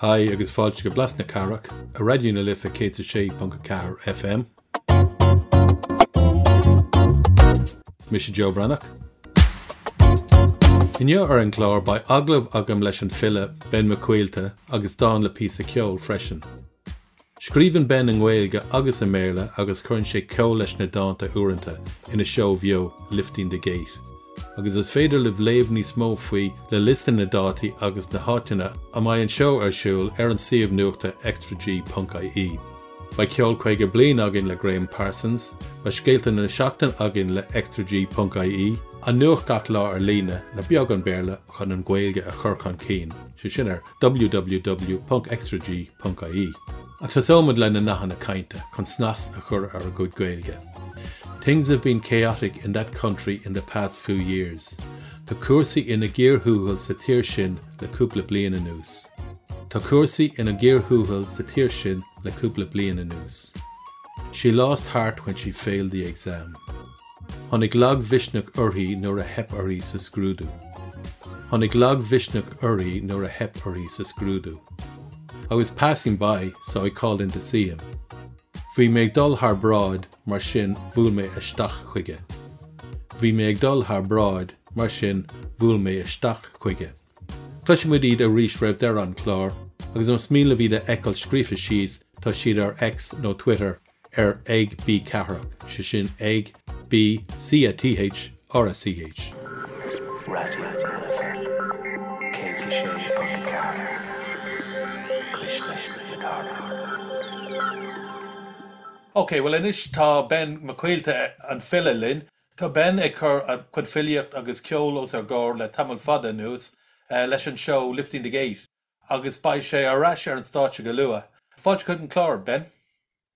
Haigh agus fáilte go Blas na Cathrach ar Raidió na Life 106.4 FM. Is mise Joe Breathnach. Inniu ar an gclár beidh agallamh agam leis an file Ben Mac Caoilte agus dán le píosa ceoil freisin. Scríobhann Ben i nGaeilge agus i mBéarla agus cuireann sé ceol leis na dánta uaireanta ina seó bheo Lifting the Gate. Agus is féidir libh léamh níos mó faoi le liosta na dátaí agus na háiteanna a mbeidh an seó ar siúl ar an suíomh nuachta extrag.ie. Beidh ceol 50 bliain againn le Graham Parsons, beidh scéalta na seachtaine againn le extrag.ie, an nuacht gach lá ar líne le beagán Béarla chun an Ghaeilge a chur chun cinn, sé sin ar www.extrag.ie. Ach tosóimid le na nathanna cainte chun snas a chur ar ár gcuid Gaeilge. Things have been chaotic in that country in the past few years. Tá cúrsaí ina gcíor thuathail sa tír sin le cúpla bliain anuas. Tá cúrsaí ina gcíor thuathail sa tír sin le cúpla bliain anuas. She lost heart when she failed the exam. Tháinig lagmhisneach uirthi nuair a theip uirthi sa scrúdú. Tháinig lagmhisneach uirthi nuair a theip uirthi sa scrúdú. I was passing by, so I called in to see him. Bhí mé ag dul thar bráid, mar sin bhuail mé isteach chuige. Bhí mé ag dul thar bráid, mar sin bhuail mé isteach chuige. Cloisfidh muid iad arís roimh deireadh an chláir, agus más mian libh iad a fheiceáil scríofa síos, tá siad ar X nó Twitter ar ag B Cathrach, sé sin ag B C A T H R A C H. Raidió na Life 106.4, Cuisle na Cathrach. Ok, bhuel anois tá Ben Mac Caoilte, an file, linn. Tá Ben ag cur a chuid filíocht agus ceol os ár gcomhair le tamall fada anuas leis an seó Lifting the Gate agus beidh sé ar ais ar an stáitse go luath. Fáilte chuig an chlár, Ben.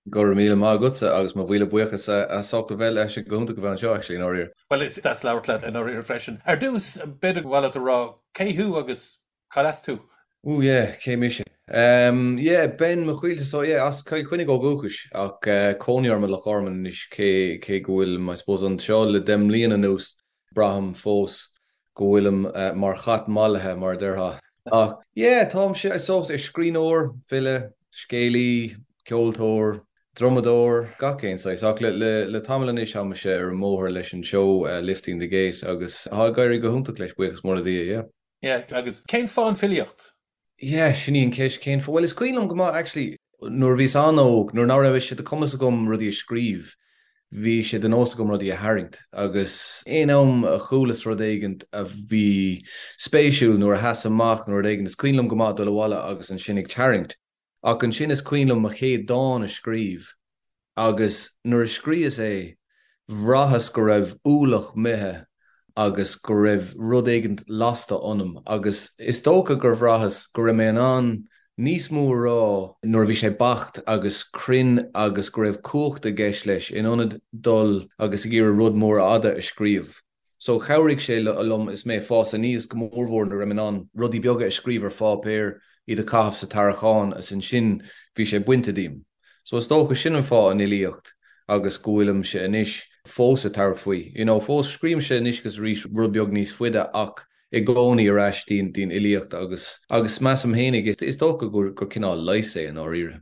Go raibh míle maith agatsa agus mo mhíle buíochas as ucht a bheith leis go hiontach a bheith anseo actually i ndáiríre. Bhuel is deas labhairt leat i ndáiríre freisin. Ar dtús, b'fhéidir gur mhaith leat a rá cé thú agus Cad as tú? Ooh yeah, cé mise? Ehm yeah, Ben Mac Caoilte, so yeah, as Cill Chainnigh ó dhúchas ach cónaí orm i Loch Garman anois cé cé go bhfuilim I suppose anseo le 10 mbliana anuas braithim fós go bhfuilim mar chat mallaithe mar a déarfá. Ach yeah, táimse I suppose ar scríbhneoir, file, scéalaí, ceoltóir, drumadóir, gach aon saghas ach le le le tamall anois táimse ar an mbóthar leis an seó Lifting the Gate agus tá ag éirí go hiontach leis buíochas mór le Dia, yeah. Yeah, agus cén fáth an filíocht? Yeah, sin í an cheist, cén fáth? Bhuel, is cuimhin liom go maith, actually, nuair a bhíos an-óg, nuair nach raibh sé de chumas agam rudaí a scríobh, bhí sé de nós agam rudaí a tharraingt. Agus aon am a chualas rud éigint a bhí spéisiúil, nuair a sheas amach nó rud éigin, is cuimhin liom go maith dul abhaile agus ansin ag tarraingt. Ach ansin is cuimhin liom mo chéad dán a scríobh agus nuair a scríos é bhraitheas go raibh ualach imithe agus go raibh rud éigint lasta ionam agus is dócha gur bhraitheas go raibh mé in ann níos mó a rá nuair a bhí sé beacht agus cruinn agus go raibh cumhacht i gceist leis in ionad dul agus ag iarraidh rud mór fhada a scríobh. So chabhraigh sé liom is mé ag fás aníos, go mórmhór nuair a raibh mé in ann rudaí beaga a scríobh ar pháipéar, iad a chaitheamh sa tarraiceán is ansin bhí sé bainte díom. So is dócha sin an fáth an fhilíocht agus go bhfuilimse anois fós ag tabhairt faoi. You know, fós scríobhaimse anois agus arís rud beag níos faide ach i gcónaí ar ais dtí'n fhilíocht agus agus measaim fhéinig is dócha gur cineál leigheas é i ndáiríre.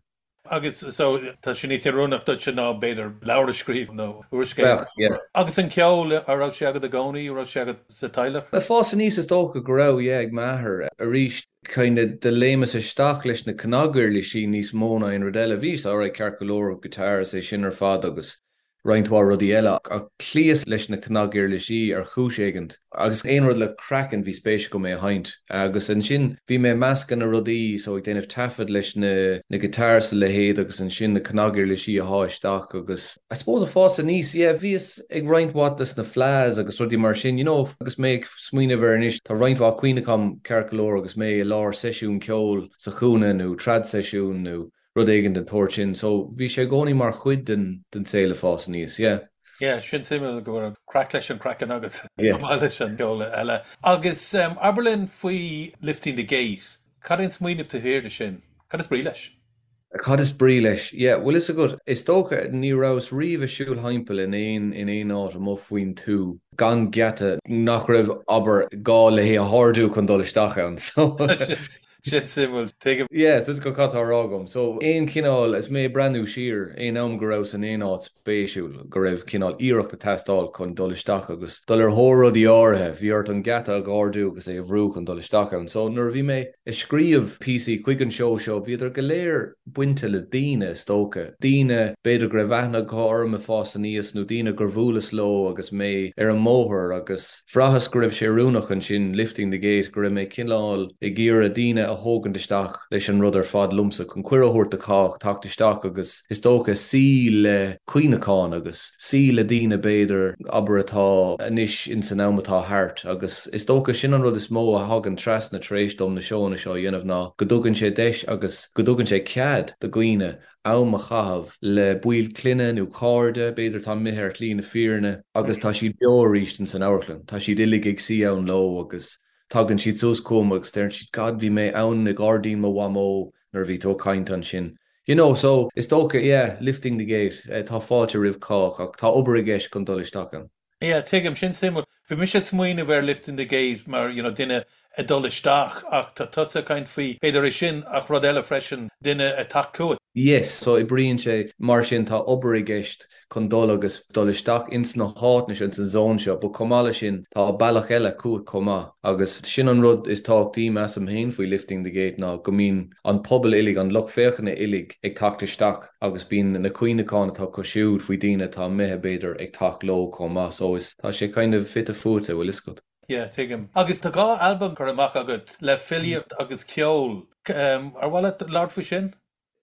Agus so tá sé níos oiriúnach duitse ná b'fhéidir leabhar a scríobh nó úrscéal. Bheadh, yeah. Agus an ceol, an raibh sé agat i gcónaí, an raibh sé agat sa teaghlach? Ag fás aníos is dócha go raibh, yeah, ag m'athair. Arís, kind of do léimeas isteach leis na cnaguirlisí níos mó ná aon rud eile. Bhíos alright ceart go leor, guitar is é sin ar fad agus roinnt mhaith rudaí eile, ach chloíos leis na cnaguirlisí ar chúis éigint, agus aon rud le craiceann bhí spéis agam é a sheinnt. Agus ansin bhí mé ag meascadh na rudaí, so ag déanamh taifead leis na na guitars is a leithéid agus ansin na cnaguirlisí a shá isteach agus I suppose ag fás aníos, yeah, bhíos ag roinnt mhaith des na fleadhs agus rudaí mar sin, you know, agus mé ag smaoineamh air anois, tá roinnt mhaith cuimhne agam ceart go leor agus mé i lár seisiún ceoil sa chúinne nó trad seisiún nó rud éigin den tsórt sin. So bhí sé i gcónaí mar chuid den den saol ag fás aníos, yeah. Yeah, sin suimiúil go raibh craic leis an craiceann agat chomh maith leis an gceol eile. Agus abair linn faoi Lifting the Gate, cad é an smaoineamh taobh thiar de sin? Cad is brí leis? Cad is brí leis? Yeah, bhfuil fhios agat, is dócha ní rabhas riamh ag siúl thimpeall in aon in aon áit amuigh faoin tuath gan geata nach raibh, abair, gá le hé a ardú chun dul isteach ann. So. Sin suimiúil, tuigim. Yeah, so is cad tá á rá agam. So, aon chineál, is mé ag breathnú siar, aon am go rabhas in aon áit spéisiúil, go raibh cineál iarracht ag teastáil chun dul isteach agus dul ar thóir rudaí áirithe, bhí ort an geata a dh'ardú agus é a bhrú chun dul isteach ann. So, nuair a bhí mé ag scríobh píosaí chuig an seó seo, bhíodar go léir bainte le daoine, is dócha. Daoine, b'fhéidir go raibh aithne acu orm ag fás aníos nó daoine gur bhuaileas leo agus mé ar an mbóthar agus. Bhraitheas go raibh sé oiriúnach ansin, lifting the gate, go raibh mé cineál ag iarraidh daoine a thógaint isteach leis an rud ar fad liomsa, chun cuireadh a thabhairt do chách teacht isteach agus is dócha suí le cuimhneacháin agus suí le daoine b'fhéidir, abair, atá anois ins an am atá thart agus is dócha sin an rud is mó a thagann trasna tar éis dom na seóanna seo a dhéanamh ná go dtugann sé deis agus go dtugann sé cead do dhaoine am a chaitheamh le baill clainne nó cairde, b'fhéidir atá imithe ar shlí na fírinne, agus tá siad beo arís ins an amharclann. Tá siad uilig ag suí ann leo agus tagann siad suas chugam agus deireann siad God bhí mé ann i ngairdín mo mhamó nuair a bhí tú ag caint ansin. You know, so is dócha, yeah, lifting the gate, tá fáilte roimh chách ach tá obair i gceist chun dul isteach ann. Yeah, tuigim, sin suimiúil. Bhí mise ag smaoineamh ar lifting the gate mar, you know, duine ag dul isteach ach tá tusa ag caint faoi, b'fhéidir é sin ach rud eile freisin, duine ag teacht chugat. Yes, so oibríonn sé mar sin, tá obair i gceist chun dul agus dul isteach ins na háiteanna seo, ins an zone seo, but chomh maith leis sin tá bealach eile chugat chomh maith agus sin an rud is tábhachtaí measaim féin faoi lifting the gate ná go mbíonn an pobal uilig, an lucht féachana uilig ag teacht isteach. agus bíonn na cuimhneacháin atá acu siúd faoi daoine atá imithe b'fhéidir ag teacht leo chomh maith so is tá sé kind of fite fuaite, bhfuil fhios agat. Yeah, tuigim. Agus tá 2 albam curtha amach agat le filíocht agus ceol. Ar mhaith leat labhairt faoi sin?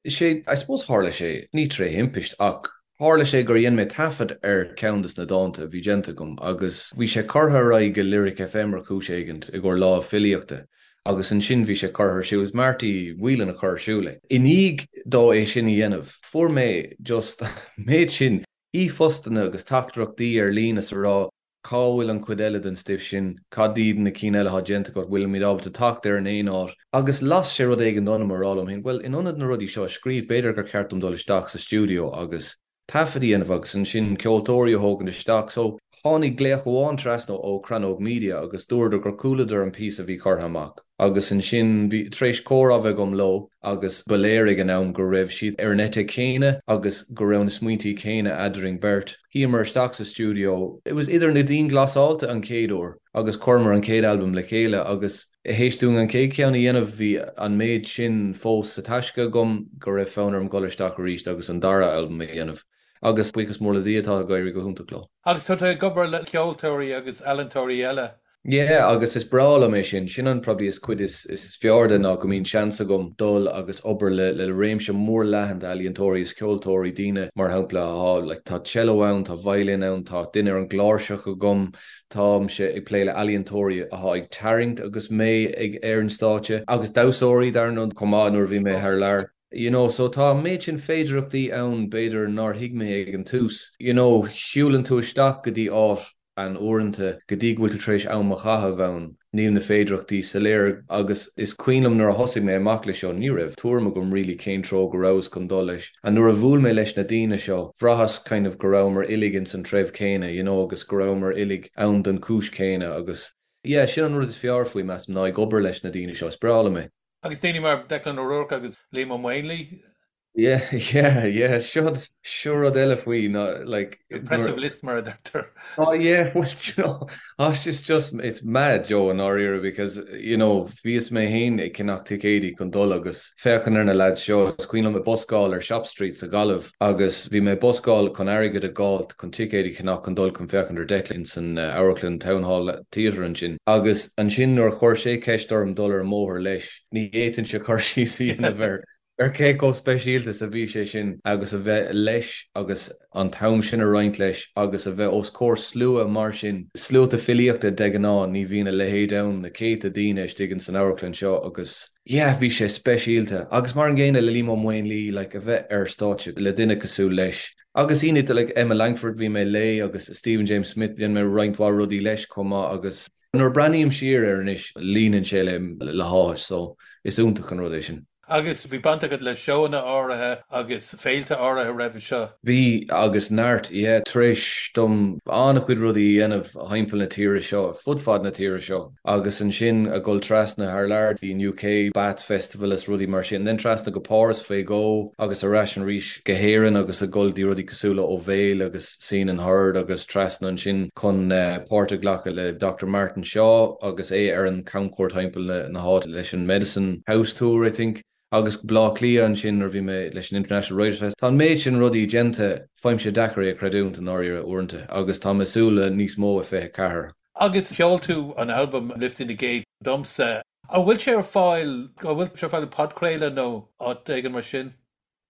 Sé, I suppose tharla sé, ní tré thimpist ach tharla sé gur dhein mé taifead ar ceann des na dánta a bhí déanta agam agus bhí sé curtha ar aghaidh go Lyric FM ar chúis éigint i gcomhair lá filíochta. Agus ansin bhí sé curtha ar siúl, is Marty Whelan a chuir ar siúl é. I ndiaidh dó é sin a dhéanamh, fuair mé just an méid sin e-phostanna agus teachtaireachtaí ar líne is a rá cá bhfuil an chuid eile den stuif sin, cad iad na cinn eile atá déanta agat, bhfuilimid ábalta teacht air in aon áit. Agus las sé rud éigin ionam a rá liom féin, bhuel, in ionad na rudaí seo a scríobh, b'fhéidir gur cheart dom dul isteach sa stiúideo agus. taifead a dhéanamh agus ansin ceoltóirí a thógaint isteach. So, tháinig glaoch amháin trasna ó Crannóg Media agus dúradar gur chualadar an píosa a bhí curtha amach agus ansin bhí, tar éis comhrá a bheith agam leo agus ba léir ag an am go raibh siad ar an eite chéanna agus go raibh na smaointí céanna eadrainn beirt. Shuíomar isteach sa stiúideo, it was idir na dianghlasáilte an chéad uair agus chuireamar an chéad albam le chéile agus, Théis dúinn an chéad cheann a dhéanamh bhí an méid sin fós sa taisce agam go raibh fonn orm dul isteach arís agus an dara albam a dhéanamh. Agus buíochas mór le Dia tá ag éirí go hiontach leo. Agus tá tú ag obair le ceoltóirí agus ealaíontóirí eile. Yeah, agus is breá liom é sin. Sin an probably is cuid is fearr de ná go mbíonn seans agam dul agus obair le le réimse mór leathan d'ealaíontóirí is ceoltóirí, daoine mar shampla atá like tá cello ann, tá violin ann, tá duine ar an gcláirseach agam, Táimse ag plé le ealaíontóirí atá ag tarraingt agus mé ag ar an stáitse, agus damhsóirí dar ndóigh chomh maith nuair a bhí mé thar lear. You know, so tá an méid sin féidearthachtaí ann b'fhéidir nár thuig mé ag an tús. You know, siúlann tú isteach go dtí áit and uaireanta go dtí go bhfuil tú tar éis am a chaitheamh ann, níl na féidearthachtaí soiléir agus is cuimhin liom nuair a thosaigh mé amach leis seo, ní raibh tuairim agam really cén treo go rabhas chun dul leis. And nuair a bhuail mé leis na daoine seo, bhraitheas kind of go rabhamar uilig ins an treibh céanna, you know, agus go rabhamar uilig ann don chúis chéanna agus yeah, sin an rud is fearr faoi, measaim, ná ag obair leis na daoine seo, is breá liom é. Agus daoine mar Declan O'Rourke agus Liam Ó Maonlaí? Yeah, yeah, yeah, seo, seo rud eile faoi ná like. Impressive list mar a deirtear. Oh yeah, well, you know, oh, it's just, it's mad, Joe, i ndáiríre because, you know, bhíos mé féin ag ceannach ticéidí chun dul agus féachaint ar na lads seo, is cuimhin liom ag buscáil ar Shop Street sa Ghaillimh agus bhí mé ag buscáil chun airgead a dh'fháilt chun ticéid a cheannach chun dul chun féachaint ar Declan ins an amharclann Town Hall Theatre ansin agus ansin nuair a chuir sé ceist orm dul ar an mbóthar leis, ní fhéadfainnse cur síos a dhéanamh air ar cé chomh speisialta is a bhí sé sin agus a bheith leis agus an t-am sin a roinnt leis agus a bheith os comhair slua mar sin, sluaite filíochta de ghnáth, ní bhíonn a leithéid ann, na céadta daoine istigh ins an amharclann seo agus yeah, bhí sé speisialta. Agus mar an gcéanna le Liam Ó Maonlaí, like a bheith ar stáitse le duine cosúil leis. Agus daoine like Emma Langford, bhí mé léi agus Stephen James Smith, dhein mé roinnt mhaith rudaí leis chomh maith agus nuair a breathnaím siar air anois, líonann sé le le háthas so is iontach an rud é sin. Agus bhí baint agat le seóanna áirithe agus féilte áirithe roimhe seo? Bhí, agus neart, yeah. Tar éis dom an-chuid rudaí a dhéanamh thimpeall na tíre seo, fud fad na tíre seo, agus ansin a dhul trasna thar lear dtí an UK, Bath Festival is rudaí mar sin, then trasna go Páras faoi dhó agus ar ais arís go hÉirinn agus a dhul dtí rudaí cosúil le Ó Bhéal agus Seen and Heard agus trasna ansin chun páirt a ghlacadh le Doctor Martin Shaw agus é ar an camchuairt thimpeall na háite leis an Medicine House Tour, I think, agus Baile Átha Cliath ansin nuair a bhí mé leis an International Writers Fest. Tá an méid sin rudaí déanta, faighimse deacair é a chreidiúint i ndáiríre uaireanta agus tá mé ag súil le níos mó i 24. Agus sheol tú an albam Lifting the Gate domsa. An bhfuil sé ar fáil, an bhfuil sé ar fáil podchraoladh nó áit éigin mar sin?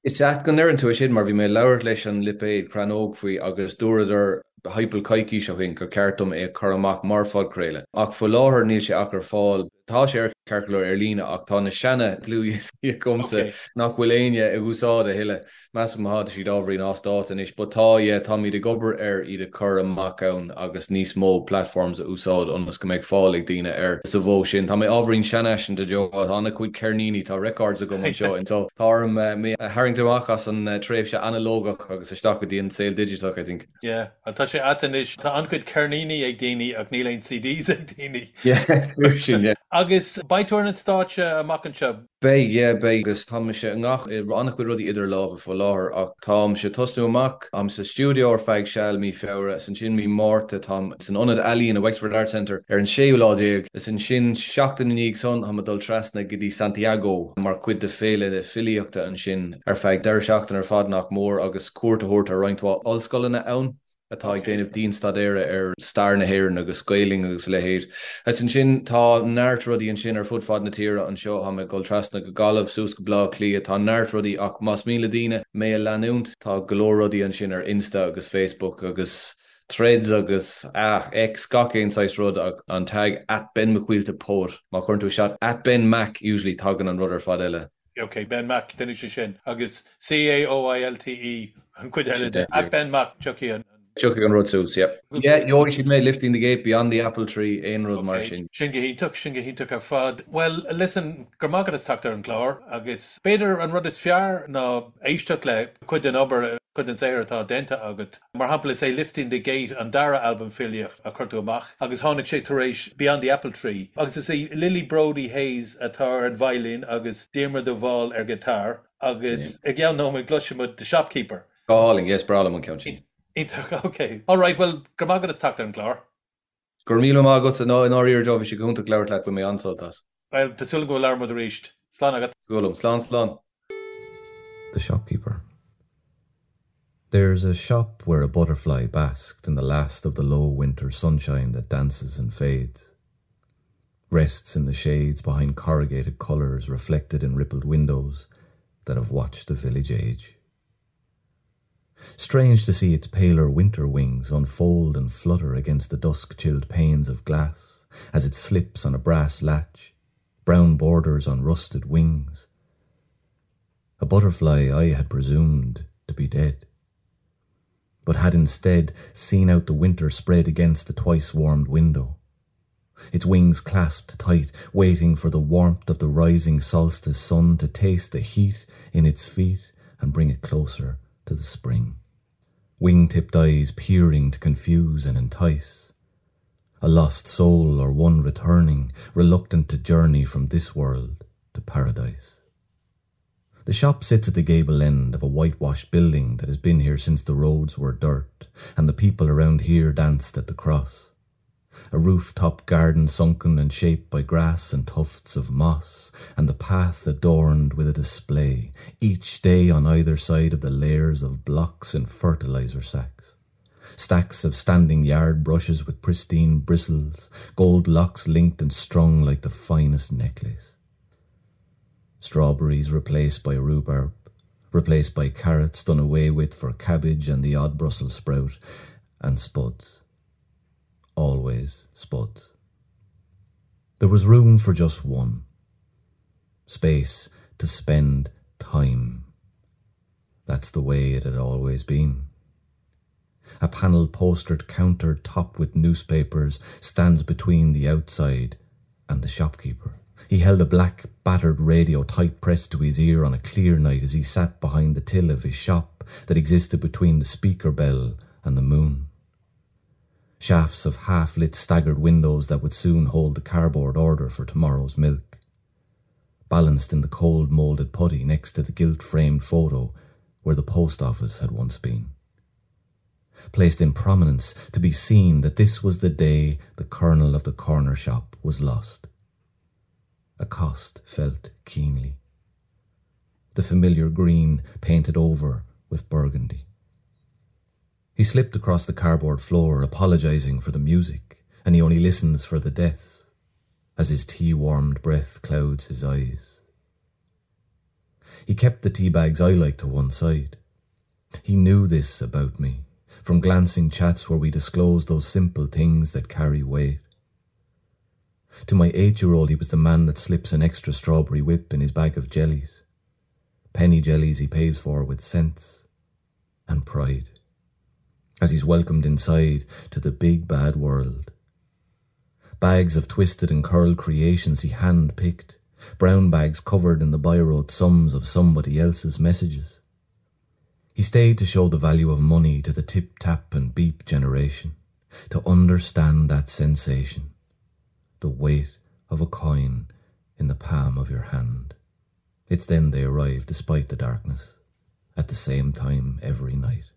Is ait go ndeireann tú é sin mar bhí mé ag labhairt leis an lipéad Crannóg faoi agus dúradar thimpeall coicís ó shin gur ceart dom é a chur amach mar phodchraoladh. Ach faoi láthair níl sé ach ar fáil, tá sé ar ceart go leor ar líne ach tá na seana dlúthdhioscaí agamsa nach bhfuil éinne ag úsáid a thuilleadh. Measaim tá siad ábhairín as dáta anois but tá, yeah, táimid ag obair ar iad a chur amach ann agus níos mó platforms a úsáid ionas go mbeidh fáil ag daoine air sa mhodh sin. Tá mé ábhairín seanfhaiseanta Joe, tá an-chuid ceirníní, tá records agam anseo in so tá orm mé a tharraingt amach as an tréimhse analógach agus isteach go dtí an saol digiteach I think. Yeah, well tá sé ait anois, tá an-chuid ceirníní ag daoine ach níl aon CDs ag daoine. Yeah, is fíor sin, yeah. Agus beidh tú ar an stáitse amach anseo? Beidh, yeah, beidh agus tá mise i ngach, i an-chuid rudaí idir lámha faoi láthair ach táimse ag tosnú amach, táim sa stiúideo ar feadh seal mí Feabhra is ansin mí Márta táim san Ionad Ealaíon i Wexford Arts Centre ar an séú lá déag is ansin seachtain i ndiaidh san táim ag dul trasna go dtí Santiago mar chuid de féile filíochta ansin ar feadh deireadh seachtaine ar fad nach mór agus cuairt a thabhairt ar roinnt mhaith ollscoileanna ann. atá ag déanamh dianstaidéara ar stair na hÉireann agus Gaelainn agus a leithéid. Agus ansin tá neart rudaí ansin ar fud fad na tíre anseo, tá mé ag dul trasna go Gaillimh, suas go Baile Átha Cliath, tá neart rudaí ach más mian le daoine mé a leanúint, tá go leor rudaí ansin ar Insta agus Facebook agus Threads agus ah, X, gach aon saghas rud ach an tag @benmaccaoiltepoet, má chuireann tú isteach @benmac usually tagann an rud ar fad eile. Ok, Ben Mac, déanfaidh sé sin. Agus C-A-O-I-L-T-E an chuid eile de. At Ben Mac, tiocfaidh an. Tiocfaidh an rud suas, yep. Yeah, gheobhaidh siad mé, Lifting the Gate, Beyond the Apple Tree, aon rud mar sin. Sin go hiontach, sin go hiontach ar fad. Bhuel, listen, go raibh maith agat as teacht ar an gclár agus b'fhéidir an rud is fearr ná éisteacht le cuid den obair, cuid den saothar atá déanta agat. Mar shampla, is é Lifting the Gate an dara albam filíochta a chuir tú amach agus tháinig sé tar éis Beyond the Apple Tree agus is í Lily Brody Hayes atá ar an veidhlín agus Diarmuid de Bhál ar ghiotár agus i gceann nóiméad cloisfidh muid The Shopkeeper. Go hálainn, yes, breá liom an ceann sin. Iontach, ok. Alright, bhuel, go raibh maith agat as teacht ar an gclár. Go raibh míle maith agatsa, i ndáiríre Joe, bhí sé go hiontach labhairt leat, bhain mé an-sult as. Bhuel, tá súil agam go labhróidh muid arís. Slán agat. Súil agam. Slán, slán. The shopkeeper. There's a shop where a butterfly basked in the last of the low winter sunshine that dances and fades. Rests in the shades behind corrugated colors reflected in rippled windows that have watched the village age. Strange to see its paler winter wings unfold and flutter against the dusk-chilled panes of glass as it slips on a brass latch, brown borders on rusted wings. A butterfly I had presumed to be dead, but had instead seen out the winter spread against the twice-warmed window, its wings clasped tight, waiting for the warmth of the rising solstice sun to taste the heat in its feet and bring it closer to the spring. Wing-tipped eyes peering to confuse and entice. A lost soul or one returning, reluctant to journey from this world to paradise. The shop sits at the gable end of a whitewashed building that has been here since the roads were dirt and the people around here danced at the cross. A rooftop garden sunken and shaped by grass and tufts of moss, and the path adorned with a display, each day on either side of the layers of blocks and fertilizer sacks. Stacks of standing yard brushes with pristine bristles, gold locks linked and strung like the finest necklace. Strawberries replaced by rhubarb, replaced by carrots done away with for cabbage and the odd Brussels sprout, and spuds. Always spuds. There was room for just one. Space to spend time. That's the way it had always been. A panel postered counter topped with newspapers stands between the outside and the shopkeeper. He held a black, battered radio tight pressed to his ear on a clear night as he sat behind the till of his shop that existed between the speaker bell and the moon. Shafts of half-lit staggered windows that would soon hold the cardboard order for tomorrow's milk. Balanced in the cold moulded putty next to the gilt-framed photo where the post office had once been. Placed in prominence to be seen that this was the day the kernel of the corner shop was lost. A cost felt keenly. The familiar green painted over with burgundy. He slipped across the cardboard floor, apologizing for the music, and he only listens for the deaths, as his tea-warmed breath clouds his eyes. He kept the tea bags I liked to one side. He knew this about me, from glancing chats where we disclosed those simple things that carry weight. To my eight-year-old, he was the man that slips an extra strawberry whip in his bag of jellies. Penny jellies he pays for with sense and pride, as he's welcomed inside to the big bad world. Bags of twisted and curled creations he hand-picked, brown bags covered in the biro sums of somebody else's messages. He stayed to show the value of money to the tip-tap and beep generation, to understand that sensation, the weight of a coin in the palm of your hand. It's then they arrive despite the darkness, at the same time every night.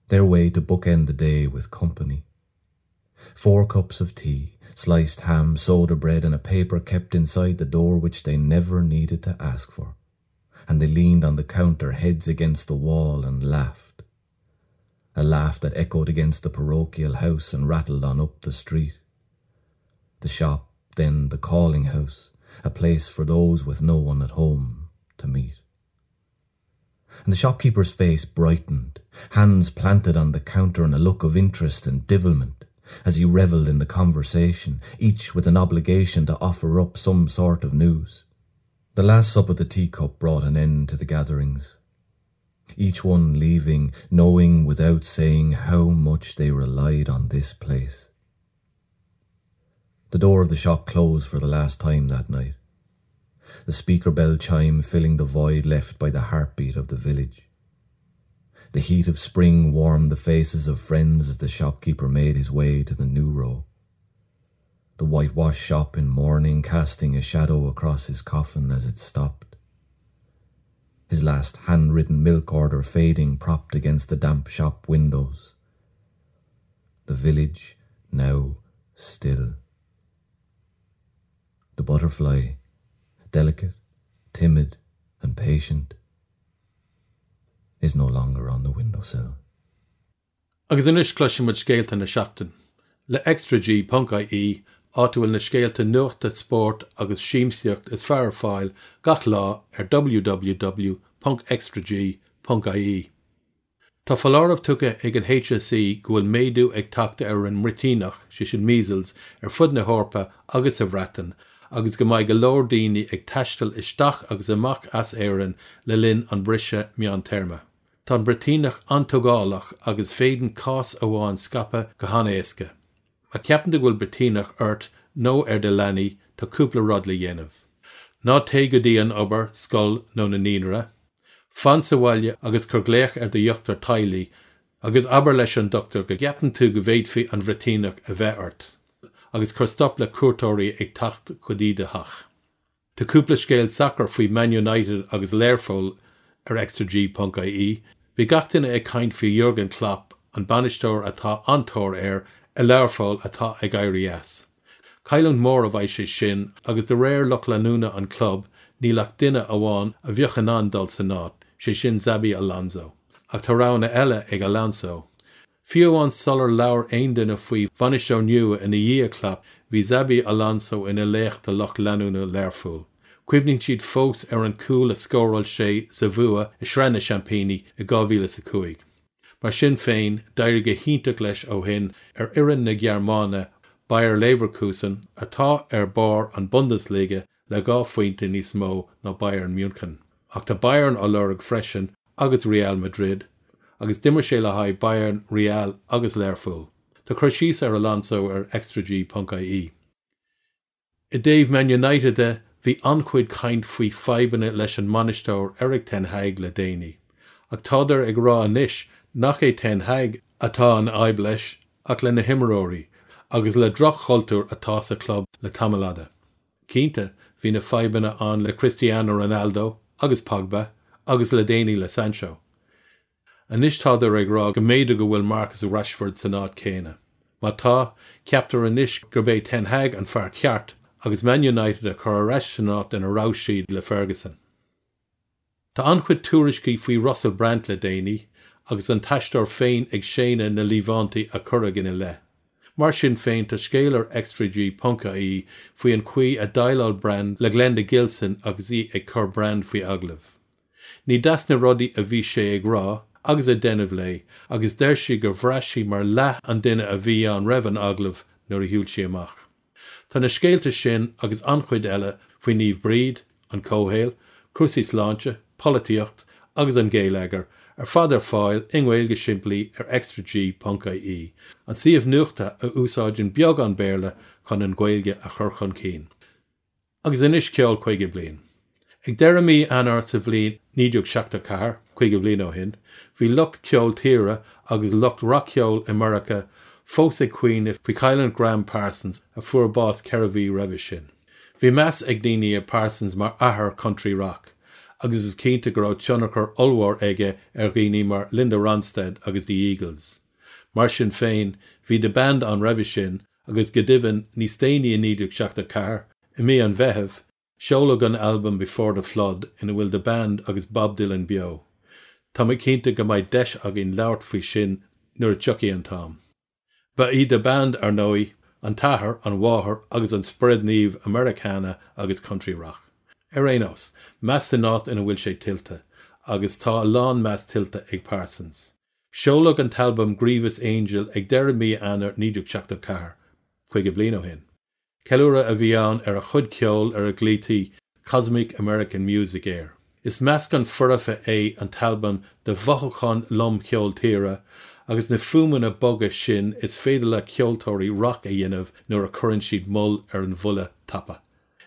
Their way to bookend the day with company. 4 cups of tea, sliced ham, soda bread and a paper kept inside the door which they never needed to ask for. And they leaned on the counter, heads against the wall, and laughed. A laugh that echoed against the parochial house and rattled on up the street. The shop, then the calling house, a place for those with no one at home to meet. And the shopkeeper's face brightened, hands planted on the counter in a look of interest and devilment, as he revelled in the conversation, each with an obligation to offer up some sort of news. The last sup of the teacup brought an end to the gatherings, each one leaving, knowing without saying how much they relied on this place. The door of the shop closed for the last time that night, the speaker bell chime filling the void left by the heartbeat of the village. The heat of spring warmed the faces of friends as the shopkeeper made his way to the new row. The whitewashed shop in mourning casting a shadow across his coffin as it stopped. His last handwritten milk order fading propped against the damp shop windows. The village now still. The butterfly, delicate, timid and patient, is no longer on the windowsill. Agus anois cloisfidh muid scéalta na seachtaine. Le ExtraG ponc IE, áit a bhfuil na scéalta nuachta, spóirt agus siamsaíocht is fearr ar fáil gach lá ar www ponc extrag ponc IE. Tá foláireamh tugtha ag an HSE go bhfuil méadú ag teacht ar an mbruitíneach, sé sin measles, ar fud na hEorpa agus sa Bhreatain agus go mbeidh go leor daoine ag taisteal isteach agus amach as Éirinn le linn an briseadh meántéarma. Tá an bruitíneach an-tógálach agus féadann cás amháin scaipeadh go han-éasca. Má cheapann tú go bhfuil bruitíneach ort nó ar do leanaí, tá cúpla rud le dhéanamh. Ná téigh go dtí an obair, scoil nó na naíonra. Fan sa bhaile agus cuir glaoch ar do dhochtúir teaghlaigh agus abair leis an dochtúir go gceapann tú go bhféadfaí an bhruitíneach a bheith ort, agus cuir stop le cuairteoirí ag teacht go dtí do theach. Tá cúpla scéal sacair faoi Man United agus Learpholl ar extrag ponc ie. Bhí gach duine ag caint faoi Jurgen Klopp, an bainisteoir atá an-tóir air i Learpholl atá ag éirí as. Cailliúint mhór a bheidh sé sin agus de réir lucht leanúna an chlub níl ach duine amháin a bheadh in ann dul san áit, sé sin Xabi Alonso. Ach tá roghanna eile ag Alonso. Fiú amháin sular labhair aon duine faoi bhainisteoir nua ina dhiaidh Klopp, bhí Xabi Alonso ina laoch do lucht leanúna Learpholl. Cuimhníonn siad fós ar an cúl a scóráil sé sa bhua i Sraith na Seaimpíní i 2005. Mar sin féin, d'éirigh go hiontach leis ó shin ar fhoireann na Gearmáine, Bayer Leverkusen, atá ar barr an Bundesliga le 2 phointe níos mó ná Bayern München. Ach tá Bayern á lorg freisin agus Real Madrid, agus d'imir sé le haghaidh Bayern, Real agus Learpholl. Tá cur síos ar Alonso ar extrag.ie. I dtaobh Man United de, Bhí an-chuid caint faoi fadhbanna leis an mbainisteoir Erik ten Hag le déanaí. Ach tádar ag rá anois nach é ten Hag atá an fhadhb leis ach le na himreoirí agus le droch-chultúr atá sa chlub le tamall fhada. Cinnte, bhí na fadhbanna ann le Cristiano Ronaldo agus Pogba agus le déanaí le Sancho. Anois tádar ag rá go mb'fhéidir go bhfuil Marcus Rashford san áit chéanna. Má tá, ceaptar anois gurb é Ten Hag an fear ceart agus Man United a chur ar ais san áit ina raibh siad le Ferguson. Tá an-chuid tuairiscí faoi Russell Brand le déanaí agus an t-aisteoir féin ag séanadh na líomhaintí a cuireadh ina leith. Mar sin féin, tá scéal ar ExtraG ponc ie faoi an chaoi a dhéileáil Brand le Glenda Gilson agus í ag cur Brand faoi agallamh. Ní deas na rudaí a bhí sé ag rá agus ag déanamh léi agus deir sí gur bhraith sí mar leath an duine a bhí ann roimh an agallamh nuair a shiúil sí amach. Tá na scéalta sin agus an-chuid eile faoi Naomh Bríd, an comhshaol, cúrsaí sláinte, polaitíocht agus an geilleagar ar fad ar fáil i nGaeilge simplí ar extraG ponc ie, an suíomh nuachta a úsáideann beagán Béarla chun an Ghaeilge a chur chun cinn. Agus anois ceol 50 bliain. Ag deireadh mí Eanáir sa bhliain 1974, 50 bliain ó shin, bhí lucht ceol tíre agus lucht rac-cheoil i Meiriceá fós ag caoineadh faoi chailliúint Gram Parsons a fuair bás ceithre mhí roimhe sin. Bhí meas ag daoine ar Parsons mar athair country rock agus is cinnte go raibh tionchar ollmhór aige ar dhaoine mar Linda Ronstadt agus The Eagles. Mar sin féin, bhí The Band ann roimhe sin agus go deimhin níos déanaí i 1974, i mí an Mheithimh, seoladh an albam Before the Flood ina bhfuil The Band agus Bob Dylan beo. Tá mé cinnte go mbeidh deis againn labhairt faoi sin nuair a tiocfaidh an t-am. Ba í The Band, ar ndóigh, an t-athair, an mháthair agus an Spiorad Naomh Americana agus Country Rock. Ar aon nós, meas san áit ina bhfuil sé tuillte, agus tá a lán meas tuillte ag Parsons. Seoladh an t-albam Grievous Angel ag deireadh mí Eanáir 1974, 50 bliain ó shin. Ceiliúradh a bhí ann ar a chuid ceoil ar a nglaoití Cosmic American Music air. Is meascán foirfe é an t-albam de mhothúcháin lom cheol tíre agus na fuaimeanna boga sin is féidir le ceoltóirí rac a dhéanamh nuair a chuireann siad moll ar an bhuille tapa.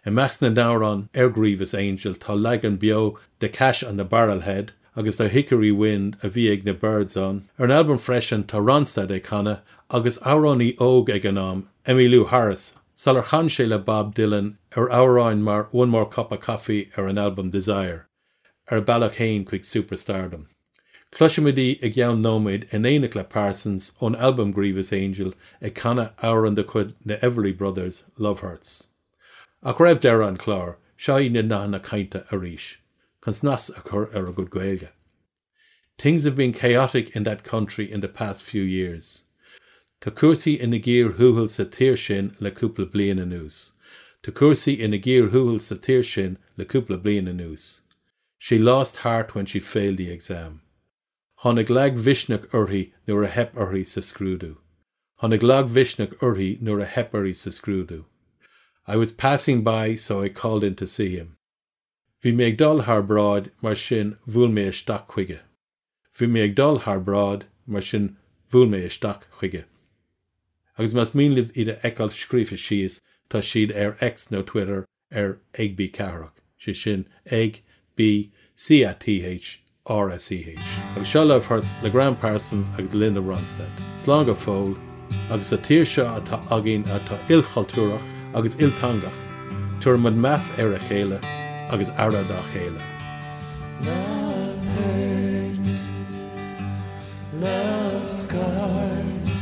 I measc na n-amhrán ar Grievous Angel tá leagan beo de Cash on the Barrelhead agus de Hickory Wind a bhí ag na Byrds ann. Ar an albam freisin tá Ronstadt ag canadh agus amhránaí óg ag an am, Emmylou Harris, sular chan sé le Bob Dylan ar amhráin mar One More Cup of Coffee ar an albam Desire, ar a bealach féin chuig superstardom. Cloisfimid í i gceann nóiméad in éineacht le Parsons ón albam Grievous Angel ag canadh amhrán de chuid na Everly Brothers, Love Hurts. Ach roimh deireadh an chláir, seo iad na nathanna cainte arís, chun snas a chur ar bhur gcuid Gaeilge. Things have been chaotic in that country in the past few years. Tá cúrsaí ina gcíor thuathail sa tír sin le cúpla bliain anuas. Tá cúrsaí ina gcíor thuathail sa tír sin le cúpla bliain anuas. She lost heart when she failed the exam. Tháinig lagmhisneach uirthi nuair a theip uirthi sa scrúdú. Tháinig lagmhisneach uirthi nuair a theip uirthi sa scrúdú. I was passing by so I called in to see him. Bhí mé ag dul thar bráid mar sin bhuail mé isteach chuige. Bhí mé ag dul thar bráid mar sin bhuail mé isteach chuige. Agus más mian libh iad a fheiceáil scríofa síos tá siad ar X nó Twitter ar ag B Cathrach, sé sin ag B C A T H R A C H. Agus seo Love Hurts le Gram Parsons agus Linda Ronstadt. Slán go fóill, agus sa tír seo atá againn atá ilchultúrach agus ilteangach, tabharfaimid meas ar a chéile agus aire dá chéile. Love hurts, love scars,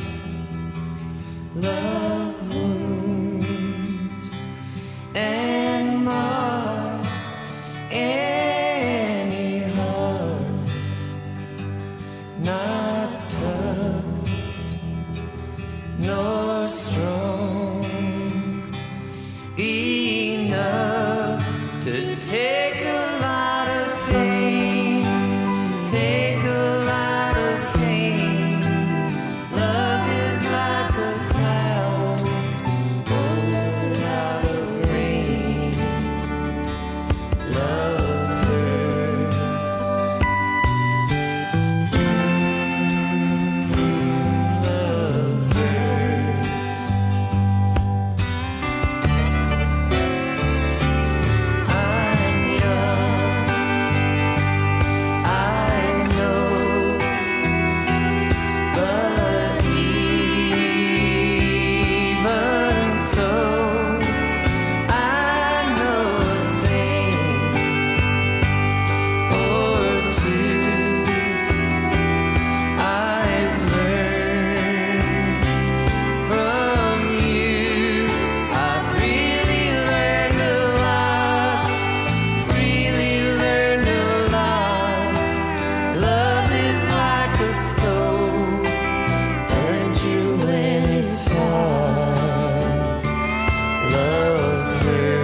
love wounds and marks any heart not tough nor strong enough to take a lot of pain, take a lot of pain. Love is like a cloud, holds a lot of rain. Love hurts. Love hurts. heard.